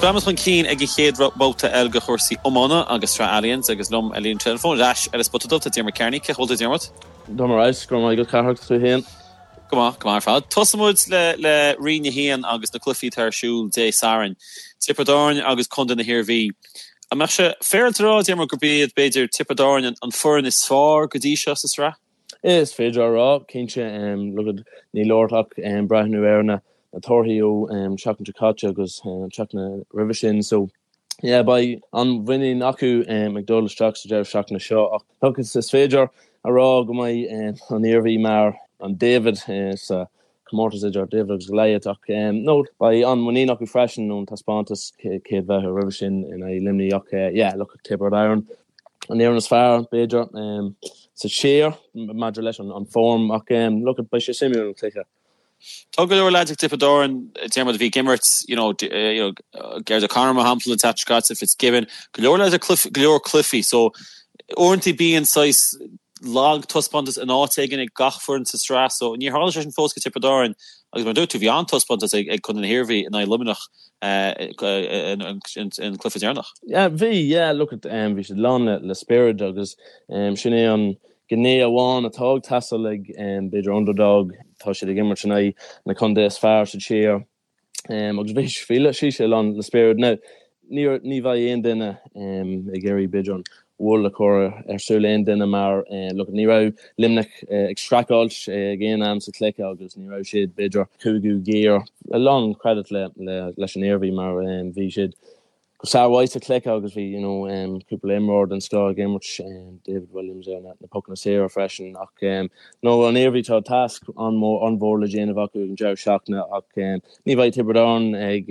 Breathnaíonn chun cinn ag an chéad bhabhta eile de chúrsaí iomána agus Sraith Allianz agus liom ar líne teileafóin ar ais ar an Spota Dubh tá Diarmuid Kearney. Cén chaoi a bhfuil tú Diarmuid? Tá mé ar fheabhas, go raibh maith agat Cárthach, tú féin? Go maith, go maith ar fad. Tosóidh muid le le Roinn 1 agus na cluichí atá ar siúl Dé Sathairn. Tiobraid Árann agus Contae na hIarmhí. An mbeadh sé féaráilte a rá, Diarmuid, gurb iad, b'fhéidir, Tiobraid Árann an foireann is fearr go dtí seo sa sraith? Is féidir a rá, cinnte. Look at, níl ort ach breathnú ar na torthaí ó seachtain seo caite agus an tseachtain roimhe sin. So, yeah, beidh an-mhuinín acu ag dul isteach sa deireadh seachtaine seo ach look, is féidir a rá go mbeidh an Iarmhí mar an David sa comórtas idir David agus Goliath ach no, beidh an-mhuinín acu freisin ón taispeántas chéad bhabhta roimhe sin in aghaidh Luimnigh ach yeah, look, Tiobraid Árann an fhoireann is fearr, b'fhéidir, sa tír maidir leis an form ach look, beidh sé suimiúil an cluiche. Tá go leor leaids ag Tiobraid Árann, Diarmuid, a bhí ag imirt, you know, you know, Gerard O'Connor mar shampla an tseachtain seo caite, Fitzgibbon, go leor leaids ag go leor cluichí so uaireanta bíonn saghas lag taispeántas in áit éigin ag gach foireann sa sraith so níor tharla sé sin fós go Tiobraid Árann agus mar a dúirt tú bhí an-taispeántas ag ag Contae na hIarmhí in aghaidh Luimneach an cluiche deireanach. Yeah bhí, yeah look at bhí siad lán le le spiorad agus sin é an gné amháin atá ag teastáil ag b'fhéidir underdog, tá siad ag imirt in aghaidh na contae is fearr sa tír agus bhí bhí sé lán le spiorad. Now ní ní bheidh aon duine ag iarraidh b'fhéidir an wool a chur ar súil aon duine mar look ní raibh Luimneach ag streachailt ag aon am sa chluiche agus ní raibh siad b'fhéidir cúigiú giar. A lán credit le leis an Iarmhí mar bhí siad go sármhaith sa chluiche agus bhí you know cúpla imreoir den scoth ag imirt, David Williams ar na pocanna saora freisin ach no an Iarmhí tá tasc an-mhór le déanamh acu ag an deireadh seachtaine ach ní bheidh Tiobraid Árann ag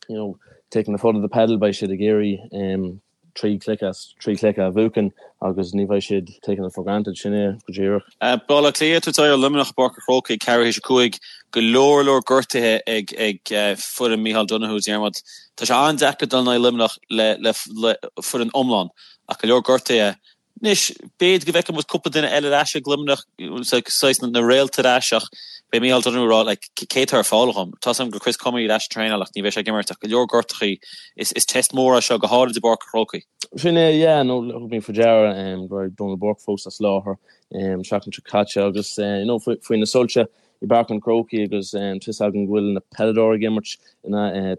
you know taking the foot off the pedal beidh siad ag iarraidh 3 chluiche as 3 chluiche a bhuachan agus ní bheidh siad taking it for granted, sin é go díreach. Baile Átha Cliath ag tabhairt aghaidh ar Luimneach i bPáirc an Chrócaigh ag ceathrú théis a 5. Go leor leor gortuithe ag ag foireann Micheál Donoghue, Diarmuid. Tá sé an-deacair dul in aghaidh Luimneach le le le foireann iomlán ach go leor gortuithe. Anois, b'fhéidir go bhfeicfidh muid cúpla duine eile ar ais ag Luimneach, saghas na réalta ar ais ach beidh Micheál Donoghue ag rá like cé atá ar fáil dhom? Tá's agam go Chris Crummey ar ais ag traenáil ach ní bheidh sé ag imirt ach go leor gortachaí. Is is test mór é seo go háirid i bPáirc an Chrócaigh. Sin é, yeah, no thug mé faoi deara go raibh Donal Burke fós as láthair an tseachtain seo caite agus you know faoi na soilse i bPáirc an Chrócaigh agus tá fhios agam go bhfuil na peileadóirí ag imirt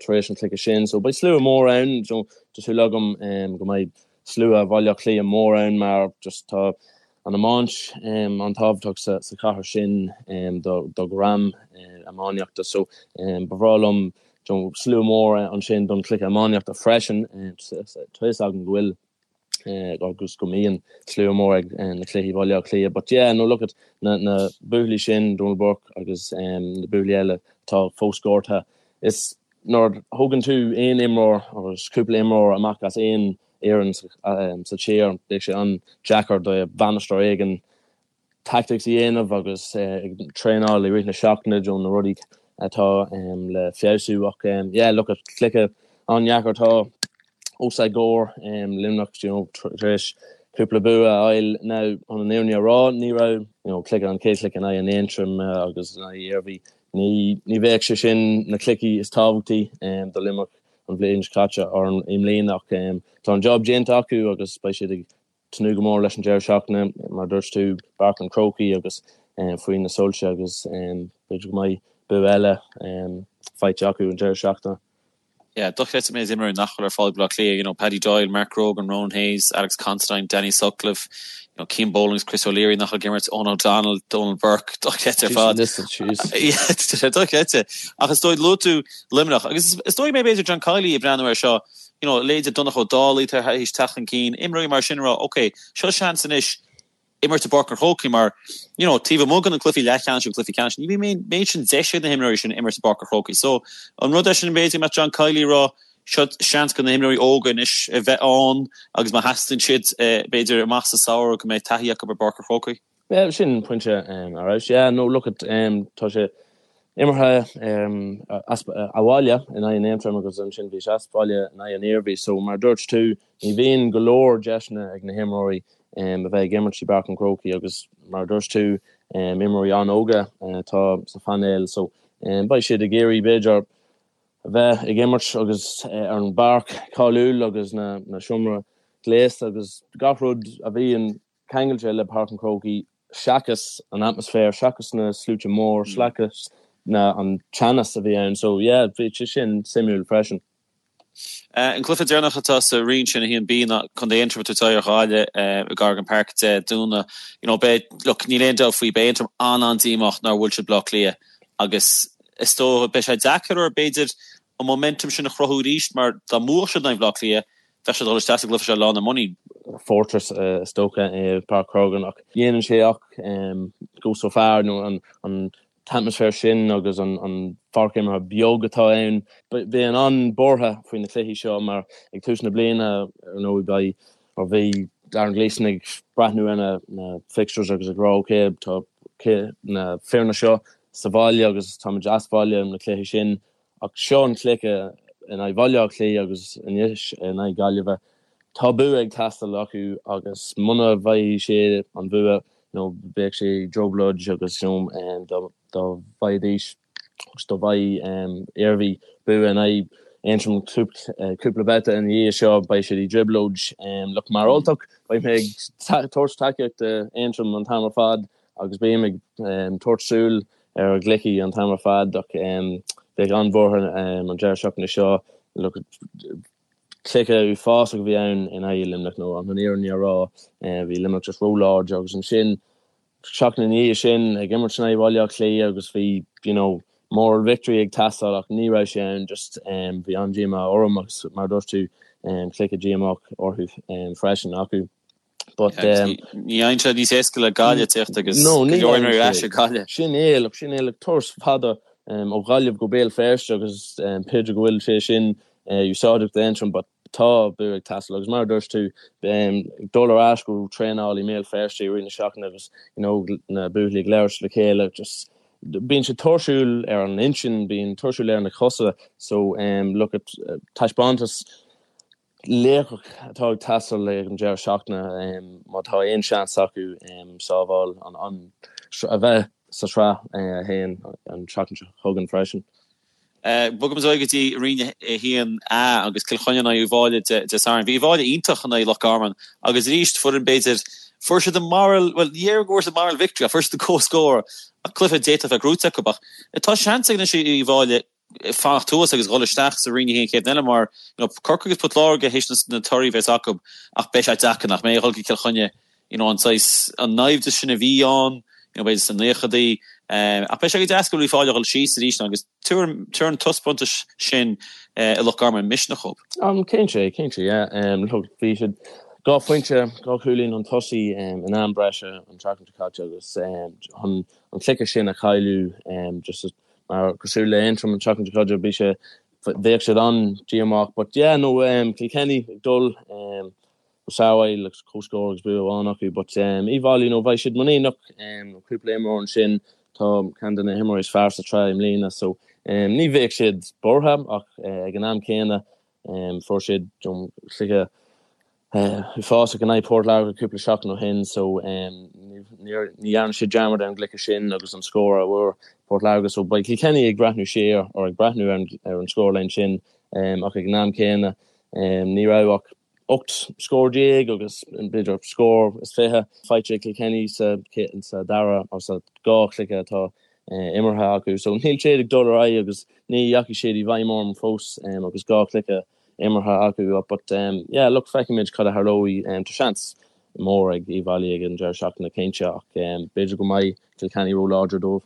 tar éis an chluiche sin so beidh slua mór ann, tá súil agam go mbeidh slua Bhaile Átha Cliath mór ann mar just tá an iomáint an-tábhachtach sa chathair sin do dhream iománaíochta so ba bhreá liom slua mór ansin don chluiche iománaíochta freisin. Tá fhios agam go bhfuil agus go mbíonn slua mór ag na cluichí Bhaile Átha Cliath but yeah no look at na na buachaillí sin Donal Burke agus na buachaillí eile atá fós gortaithe is Nuair a thógann tú aon imreoir agus cúpla imreoir amach as aon fhoireann sa tír, beidh sé an-deacair do bhainisteoir éigin tactics a dhéanamh agus ag traenáil i rith na seachtaine do na rudaí atá le feabhsú. Ach yeah, look at cluiche an-deacair atá os a gcomhair, Luimneach you know tar éis cúpla bua a fháil. Now chun an fhírinne a rá, ní raibh you know cluiche an chéad chluiche in aghaidh an Aontroim agus in aghaidh Iarmhí Ní bheadh sé sin na cluichí is tábhachtaí do Luimneach an bhliain seo caite or i mbliana ach tá an job déanta acu agus beidh siad ag tnúth go mór leis an deireadh seachtaine, mar a dúirt tú, Páirc an Chrócaigh agus faoi na soilse agus b'fhéidir go mbeidh bua eile faighte acu an deireadh seachtaine. Yeah, dochreidte an méid imreoirí nach bhfuil ar fáil ag Baile Átha Cliath, you know, Paddy Doyle, Mark Grogan, Ronan Hayes, Alex Considine, Danny Sutcliffe, you know, Cian Boland, Chris O'Leary nach bhfuil ag imirt, Eoghan O'Donnell, Donal Burke, dochreidte ar fad. Yeah, tá sé dochreidte. Ach is dóigh, luaigh tú Luimneach, agus is dóigh mé b'fhéidir John Kiely ag breathnú air seo, you know, leithéidí Donncha Ó Dálaigh tar éis teacht chun cinn, imreoirí mar sin ag rá, ok, seo seans anois, imirt i bPáirc an Chrócaigh mar, you know, taobh amuigh de na cluichí leathcheannais agus cluichí ceannais, ní bhíonn an méid sin deis ag na himreoirí sin imirt i bPáirc an Chrócaigh. So, an rud é sin b'fhéidir go mbeadh John Kiely ag rá, seo seans do na himreoirí óga anois a bheith ann agus má theastaíonn siad, b'fhéidir amach sa samhradh go mbeidh taithí acu ar bPáirc an Chrócaigh. Yeah, sin pointe ar fheabhas. Yeah, no, look at, tá sé imeartha as abhaile in aghaidh an Aontroim agus ansin bhí sé as baile in aghaidh an Iarmhí. So, mar a dúirt tú, ní bhíonn go leor deiseanna ag na himreoirí a bheith ag imirt i bPáirc an Chrócaigh agus mar a dúirt tú, imreoirí an-óga atá sa phainéal so beidh siad ag iarraidh b'fhéidir. A bheith ag imirt agus ar an bpáirc cáiliúil agus na seomra gléasta agus gach rud a bhíonn ceangailte le Páirc an Chrócaigh seachas an atmaisféar, seachas na sluaite mór, seachas na an teannas a bhí ann. So yeah, bhí sé sin suimiúil freisin. An cluiche deireanach atá sa roinn sin, 1B, ná Contae Aontroim ag tabhairt aghaidh ar Ghaillimh i gCorrigan Park Dé Domhnaigh. You know, beidh, look, níl aon dabht faoi, beidh Aontroim an-an-díomách nár bhuail siad Bleá Cliath agus is dócha, beidh sé deacair orthu, b'fhéidir, an momentum sin a chruthú arís mar dá mbuafadh siad in aghaidh Bhaile Átha Cliath, bheadh siad ag dul isteach sa gcluiche seo lán le muinín. Fortress is dócha é Páirc Corrigan ach dhéanann sé ach go so far nó an t-atmaisféar sin agus an pháirc imeartha beag atá ann. Bíonn an-buartha faoi na cluichí seo mar ag tús na bliana ar ndóigh beidh or bhí Darren Gleeson ag breathnú ar na fixtures agus ag rá ok tá na foirne seo sa bhaile agus táimid as baile na cluichí sin Ach seo an cluiche in aghaidh Bhaile Átha Cliath agus anois in aghaidh Gaillimhe. Tá bua ag teastáil acu agus muna bhfaighidh siad an bua you know bheadh sé trioblóid agus you know dá bhfaighidís agus dá bhfaigheadh Iarmhí bua in aghaidh Aontroim cúpla babhta ina dhiaidh seo beidh siad i dtrioblóid. Look mar Ultach beidh mé ag tabhairt tacaíocht d'Aontroim an t-am ar fad agus bím ag tabhairt súil ar a gcluichí an t-am ar fad ach bheadh an-bhuartha an deireadh seachtaine seo. Look, cluiche uafásach a bhí ann in aghaidh Luimneach nó an fhírinne a rá, bhí Luimneach just róláidir agus ansin seachtain ina dhiaidh sin ag imirt in aghaidh Bhaile Átha Cliath agus bhí you know moral victory ag teastáil ach ní raibh sé ann just bhí an-díomá orm agus mar a dúirt tú cluiche díomách orthu freisin acu. But um, ní fhaigheann sé níos éasca le Gaillimh teacht agus no, go leor imreoirí ar ais ag Gaillimh. Sin é, look, sin é, look, turas fada um, ó Ghaillimh go Béal Feirste agus um, b'fhéidir go bhfuil sé sin uh, úsáideach d'Aontroim, but tá bua ag teastáil agus mar a dúirt tú um, dul ar ais go traenáil i mBéal Feirste i rith na seachtaine agus you know, na buachaillí ag labhairt le chéile just bíonn sé tuirsiúil ar an intinn, bíonn tuirsiúil ar na cosa so um, look at uh, taispeántas laochach atá ag teastáil ag an deireadh seachtaine má tá aon seans acu sábháil an a bheith sa tSraith 1 an tseachtain seo chugainn freisin. Bogaimis ar aghaidh go dtí Roinn 1A agus Cill Chainnigh in aghaidh Uíbh Fhailí Dé Sathairn. Bhí Uíbh Fhailí iontach in aghaidh Loch Garman agus arís foireann b'fhéidir fuair siad an moral, bhuel ní déarfainn go bhfuair siad moral victory ach fuair siad an comhscór ach cluiche d'fhéadfadh a bheith gnóite acu ach tá seans ag anois Uíbh Fhailí fanacht thuas agus dhul isteach sa Roinn 1 chéad eile mar you know Corcaigh agus Port Láirge théis na torthaí a bheas acu ach beidh sé deacair nach mbeidh a dhul go Cill Chainnigh you know an saghas an naimhdeas sin a bhí ann you know b'fhéidir sna naochadaí ach beidh sé go deas go bhfuil Uíbh Fhailí a dhul síos arís agus tabharfaidh an taispeántas sin i Loch Garman misneach dóibh. Um cinnte cinnte yeah um look bhí siad dhá phointe dhá chúilín chun tosaigh um in am breise an tseachtain seo caite agus um an an cluiche sin a chailleadh um just Mar cosúil le Aontroim an tseachtain seo caite bhí sé bheadh siad an-díomách but yeah no um, Kilkenny ag dul um, go sábháil agus comhscór agus bua amháin acu but um, Uíbh Fhailí no bheidh siad muiníneach um, cúpla imreoir ansin tá ceann de na himreoirí is fearr sa tsraith i mbliana so um, ní bheadh siad buartha ach uh, ag an am céanna um, fuair siad um, cluiche uafásach in aghaidh Port Láirge cúpla seachtain ó shin so ní dhearna siad dearmad ar an gcluiche sin agus an scór a bhfuair Port Láirge so beidh Kilkenny ag breathnú siar or ag breathnú ar an scórline sin ach ag an am céanna ní raibh ach 18 scór agus b'fhéidir scór is 20 faighte ag Kilkenny sa sa dara or sa dhá chluiche atá imeartha acu so níl siad ag dul ar aghaidh agus ní dheachaigh siad i bhfeidhm orm fós agus dhá chluiche imeartha acu but yeah look feicfimid cad a tharlóidh. Tá seans mór ag Uíbh Fhailí ag an deireadh seachtaine cinnte ach b'fhéidir go mbeidh Kilkenny ró-láidir dóibh.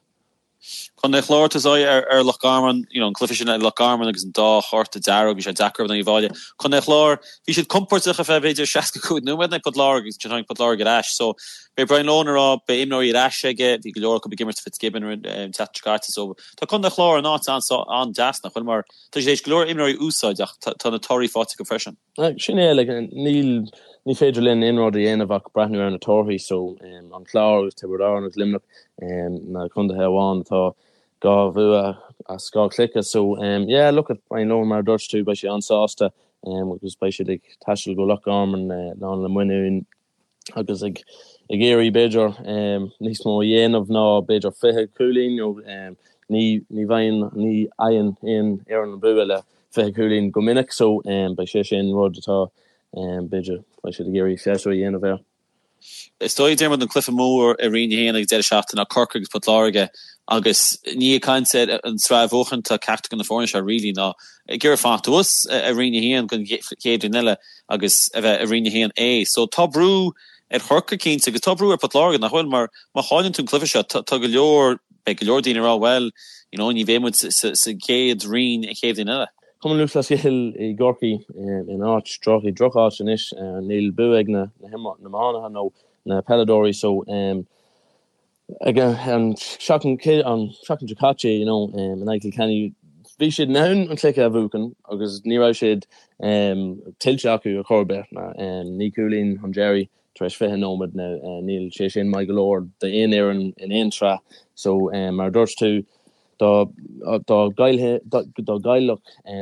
Contae an Chláir ag tabhairt aghaidh ar Loch Garman, you know an cluiche sin i Loch Garman agus an dá chárta dearg, bhí sé deacair in aghaidh Uíbh Fhailí. Contae an Chláir, bhí siad compordach ar feadh b'fhéidir 65 nóiméad in aghaidh Port Láirge agus ansin tháinig Port Láirge ar ais. So beidh Brian Lohan ag rá beidh imreoirí ar ais aige, bhí go leor acu ag imirt Fitzgibbon an tseachtain seo caite so tá Contae an Chláir in áit an-deas nach bhfuil mar Tá siad théis go leor imreoirí a úsáid ach tá na torthaí faighte acu freisin. Sin é, like, níl, ní féidir linn aon rud a dhéanamh ach breathnú ar na torthaí so an Clár agus Tiobraid Árann agus Luimneach na contaetha amháin atá dhá bhua as dhá chluiche so yeah, look at Brian Lohan mar a dúirt tú, beidh sé an-sásta agus beidh siad ag taisteal go Loch Garman lán le muinín. agus ag ag iarraidh b'fhéidir níos mó a dhéanamh ná b'fhéidir 20 cúilín nó. Ní ní bhfaigheann ní fhaigheann aon fhoireann an bua le 20 cúilín go minic so beidh sé sin rud atá b'fhéidir beidh siad ag iarraidh feabhsú a dhéanamh air. Is dóigh, Diarmuid, an cluiche mór i Roinn 1 ag an deireadh seachtaine ná Corcaigh agus Port Láirge agus ní ag caint ar an tsraith a bhuachan atá ceachtar de na foirne seo really ná ag iarraidh fanacht thuas i Roinn 1 don chéad bhliain eile agus a bheith i Roinn 1A. So tá brú ar Chorcaigh cinnte agus tá brú ar Port Láirge nach bhfuil mar má chailleann tú an cluiche seo tá go leor beidh go leor daoine ag rá bhuel you know ní bheidh muid sa gcéad roinn an chéad bhliain eile. Cumann Lúthchleas Gael i gCorcaigh in áit droch, i droch-áit anois. Níl bua ag na hiománaithe nó na peileadóirí so ag an seachtain an seachtain seo caite you know in aghaidh Kilkenny bhí siad in ann an cluiche a bhuachan agus ní raibh siad tuillte acu ar chor ar bith. 9 cúilín chun deiridh tar éis 20 nóiméad now níl sé sin maith go leor d'aon fhoireann in aon tsraith so mar a dúirt tú Dá gcaillfeadh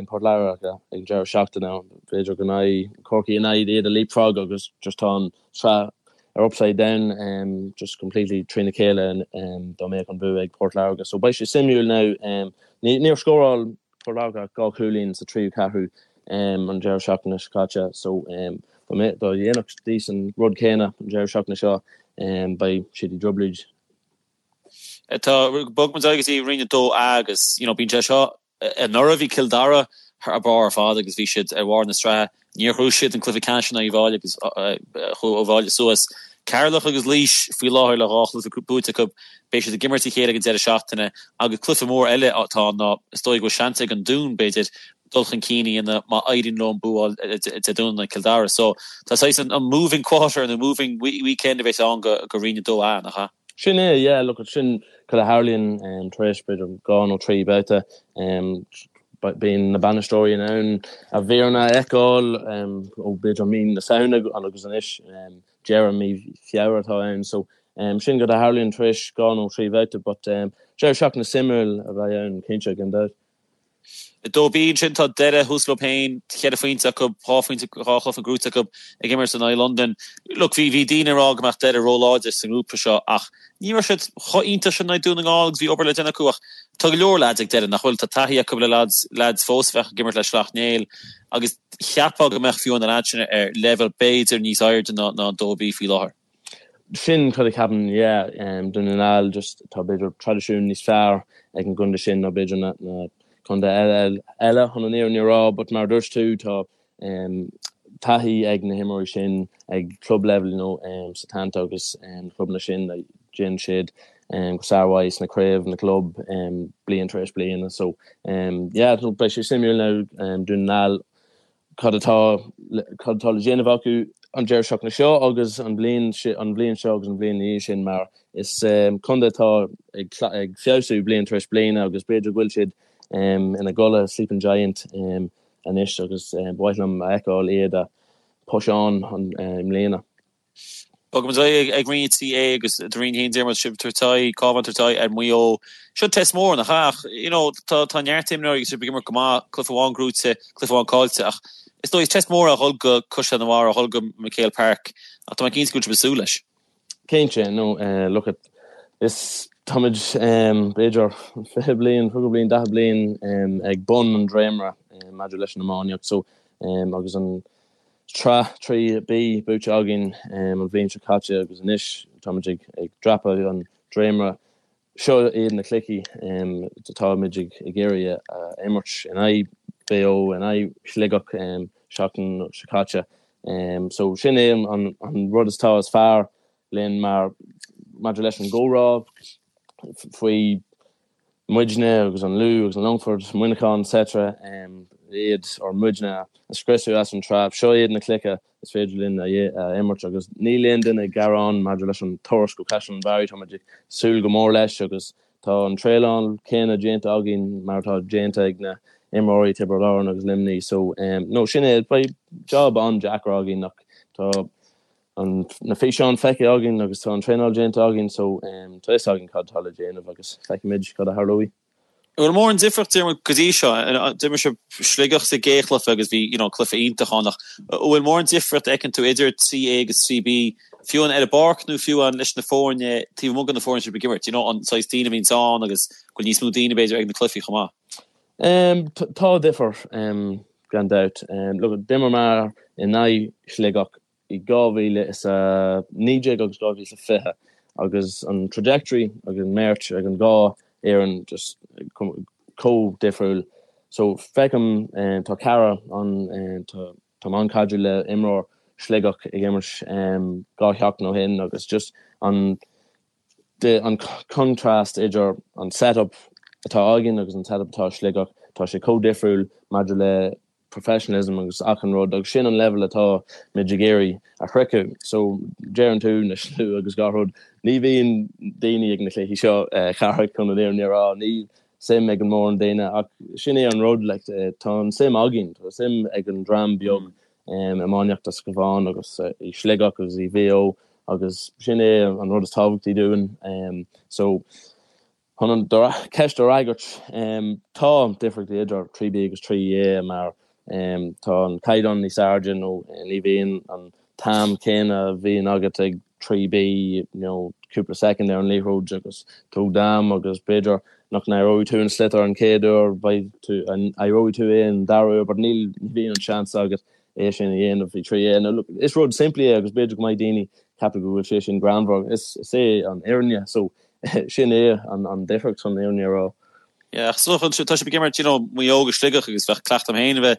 Port Láirge ag an deireadh seachtaine, b'fhéidir go mbeidh Corcaigh in ann iad a leapfrog agus just tá an tsraith ar upside down just completely trína chéile dá mbeadh an bua ag Port Láirge. So beidh sé suimiúil now. Níor scóráil Port Láirge ach 2 chúilín sa tríú ceathrú an deireadh seachtaine seo caite so dá ndéanfaidís an rud céanna an deireadh seachtaine seo beidh siad i dtrioblóid. Tá, bogfaidh muid ar aghaidh go dtí Roinn 2A agus, you know, bíonn sé seo, anuraidh bhí Cill Dara thar barr ar fad agus bhí siad ar bharr na sraithe. Níor ghnóthaigh siad an cluiche ceannais in aghaidh Uíbh Fhailí agus chuaigh Uíbh Fhailí suas. Ceatharlach agus Laois faoi láthair le dhá chluiche buaite acu. Beidh siad ag imirt a chéile ag an deireadh seachtaine agus cluiche mór eile atá ann ná is dóigh go bhfuil seans ag an Dún, b'fhéidir, dul chun cinn a dhéanamh má éiríonn leo an bua a fháil Dé Domhnaigh in aghaidh Cill Dara. So tá saghas an moving quarter nó moving weekend a bheas ann go Roinn 2A, nach ea? Sin é, yeah, look, sin cad a tharlaíonn tar éis b'fhéidir dhá nó trí babhta. Bíonn na bainisteoirí in ann a bhfoirne a fheiceáil ó b'fhéidir mí na Samhna agus anois deireadh mí Feabhra atá ann. So sin cad a tharlaíonn tar éis dhá nó trí bhabhta but deireadh seachtaine suimiúil a bheidh ann cinnte gan dabht. 2B ansin tá Doire thuas leo féin, cheithre phointe acu, dhá phointe, dhá chluiche gnóthaithe acu ag imirt in aghaidh Londain. Look, bhí, bhí daoine ag rá go mbeadh Doire róláidir sa ngrúpa seo ach ní raibh siad chomh iontach sin in aghaidh Dún na nGall agus bhí obair le déanamh acu ach tá go leor lads ag Doire nach bhfuil, tá taithí acu le lads, lads fós a bheadh ag imirt le Sleacht Néill agus cheapfá go mbeadh fiú na lads sin ar leibhéal b'fhéidir níos airde ná, ná 2B faoi láthair. Sin cad a cheapaim, yeah. Dún na nGall, just tá b'fhéidir traidisiún níos fearr ag an gcontae sin ná b'fhéidir na na contae eile eile chun an fhírinne a rá, but mar a dúirt tú tá taithí ag na himreoirí sin ag club level, you know, Setanta agus na clubanna sin déanann siad go sármhaith sna craobh na gclub bliain tar éis bliana. So yeah, beidh sé suimiúil now Dún na nGall cad atá cad atá le déanamh acu an deireadh seachtaine seo agus an bhliain an bhliain seo agus an bhliain ina dhiaidh sin mar is contae atá ag ag feabhsú bliain tar éis bliana agus b'fhéidir go bhfuil siad ina gcodladh sleeping giant anois agus ba mhaith liom a fheiceáil iad a push on i mbliana. Bogfaidh muid ar aghaidh ag Roinn 3A agus do Roinn 1 Diarmuid sibh ag tabhairt aghaidh, Cabhán ag tabhairt aghaidh ar Mhaigh Eo. Seo test mór nach ea? Ach you know tá tá neart imreoirí agus sibh ag imirt go maith, cluiche amháin gnóthaithe, cluiche amháin caillte ach is dóigh is test mór é a dhul go Caisleán an Bharraigh, a dhul go MacHale Park ach tá mé cinnte go bhfuil sibh ag súil leis. Cinnte, no look at is táimid b'fhéidir 20 bliain, 30 bliain, 40 bliain ag bun an dréimire maidir leis an iománaíocht so agus an Tsraith 3B buaite againn an bhliain seo caite agus anois táimid ag dreapadh an dréimire. Seo iad na cluichí atáimid ag iarraidh a imirt in aghaidh Mhaigh Eo, in aghaidh Shligeach seachtain seo caite. So sin é an rud is atá is fearr linn mar maidir leis an gcomhrá faoi muidne agus an Lú agus an Longfort, Muineachán etc. Iad or muidne a scriosadh as an tsraith. Seo iad na cluichí is féidir linn a imirt agus níl aon duine ag gearán maidir leis an turas go Caisleán an Bharraigh, táimid ag súil go mór leis agus tá an traenáil céanna déanta againn mar atá déanta ag na imreoirí Tiobraid Árann agus Luimnigh so no sin é, beidh job an-deacair againn ach tá an na físeáin feicthe againn agus tá an traenáil déanta againn so tá fhios againn cad atá le déanamh agus feicfimid cad a tharlóidh. An bhfuil mórán difríocht Diarmuid go dtí seo? D'imir sibh Sligeach sa gcéad chluiche agus bhí you know cluiche iontach ann ach an bhfuil mórán difríocht a fheiceann tú idir 3A agus 3B? fiú amháin ar an bpáirc nó fiú amháin leis na foirne taobh amuigh de na foirne sibh ag imirt, you know, an saghas daoine a bhíonns ann agus go bhfuil níos mó daoine b'fhéidir ag na cluichí chomh maith. Tá difear, gan dabht. Look, d'imir mé in aghaidh Shligeach i 2019 agus 2020 agus an trajectory ag an mbeirt ag an dhá fhoireann just chomh difriúil. So feicim tá cara an tá táim an-chaidreamh le imreoir Sligeach ag imirt 2 sheachtain ó shin agus just an an contrast idir an setup atá againn agus an setup atá i Sligeach tá sé chomh difriúil maidir le professionalism agus achan rud agus sin an level atá muid ag iarraidh a shroicheadh. So deireann tú na slua agus gach rud, ní bhíonn daoine ag na cluichí seo Cárthach chun an fhírinne a rá, níl suim ag an mórán daoine ach sin é an rud like tá an suim againn, tá suim ag an dream beag iománaíochta sa Chabhán agus i Sligeach agus i Mhaigh Eo agus sin é an rud is tábhachtaí dúinn. So Chun an cheist a fhreagairt, tá difríochtaí idir 3B agus 3A mar tá an caighdeán níos airde nó ní bhíonn an t-am céanna a bhíonn agat ag 3B, you know, cúpla soicind ar an liathróid agus tóg d'am agus b'fhéidir nach n-éireoidh tú an sliotar an chéad uair, beidh tú, éireoidh tú é an dara huair but níl, ní bhíonn an seans agat é sin a dhéanamh i 3A. Now look, is rud simplí é agus b'fhéidir go mbeidh daoine ceapadh go bhfuil sé sin greannmhar, is, is é an fhírinne so Sin é an difríocht chun an fhírinne a rá. Yeah, ach so tá sibh ag imirt, you know, Maigh Eo agus Sligeach agus bheadh cleachtadh agam féin a bheith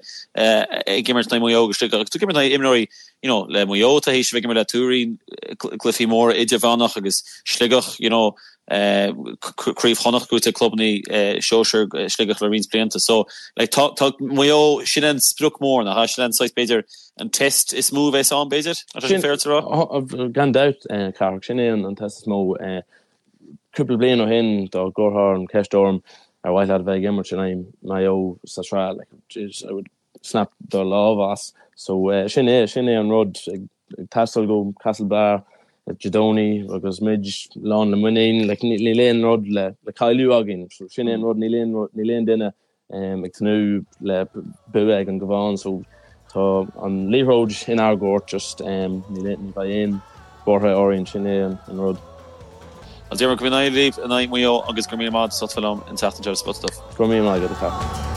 ag imirt in aghaidh Maigh Eo agus Sligeach agus tú ag imirt in aghaidh imreoirí, you know, le Maigh Eo tá théis a bheith ag imirt le Tuairín gcluichí móra idirmheánach agus Sligeach, you know, Craobh Chonnacht buaite ag clubanna sóisir Sligeach le roinnt blianta. So, like, tá, tá Maigh Eo, sin an sprioc mór, nach ea? Sin an saghas, b'fhéidir, an test is mó a bheas ann, b'fhéidir? An é sin féidir a rá? Gan dabht, Cárthach, sin é an test is mó. Cúpla bliain ó shin, dá gcuirfeá an cheist orm ar mhaith leat a bheith ag imirt in aghaidh Maigh Eo sa tsraith, like, jeez, I would snap do lámh as. So, sin é, sin é an rud ag taisteal go Castlebar Dé Domhnaigh agus muid lán le muinín, like, níl aon rud le cailleadh againn. So, sin é an rud, níl aon, níl aon duine ag tnúth le bua ag an gCabhán so tá an liathróid inár gcúirt just ní bheidh aon buartha orainn, sin é an rud. Bhuel Diarmuid, go n-éirí libh in aghaidh Mhaigh Eo agus go raibh míle maith agat as ucht a bheith liom an tseachtain seo ar Spota Dubh. Go raibh míle maith agat a Cárthaigh.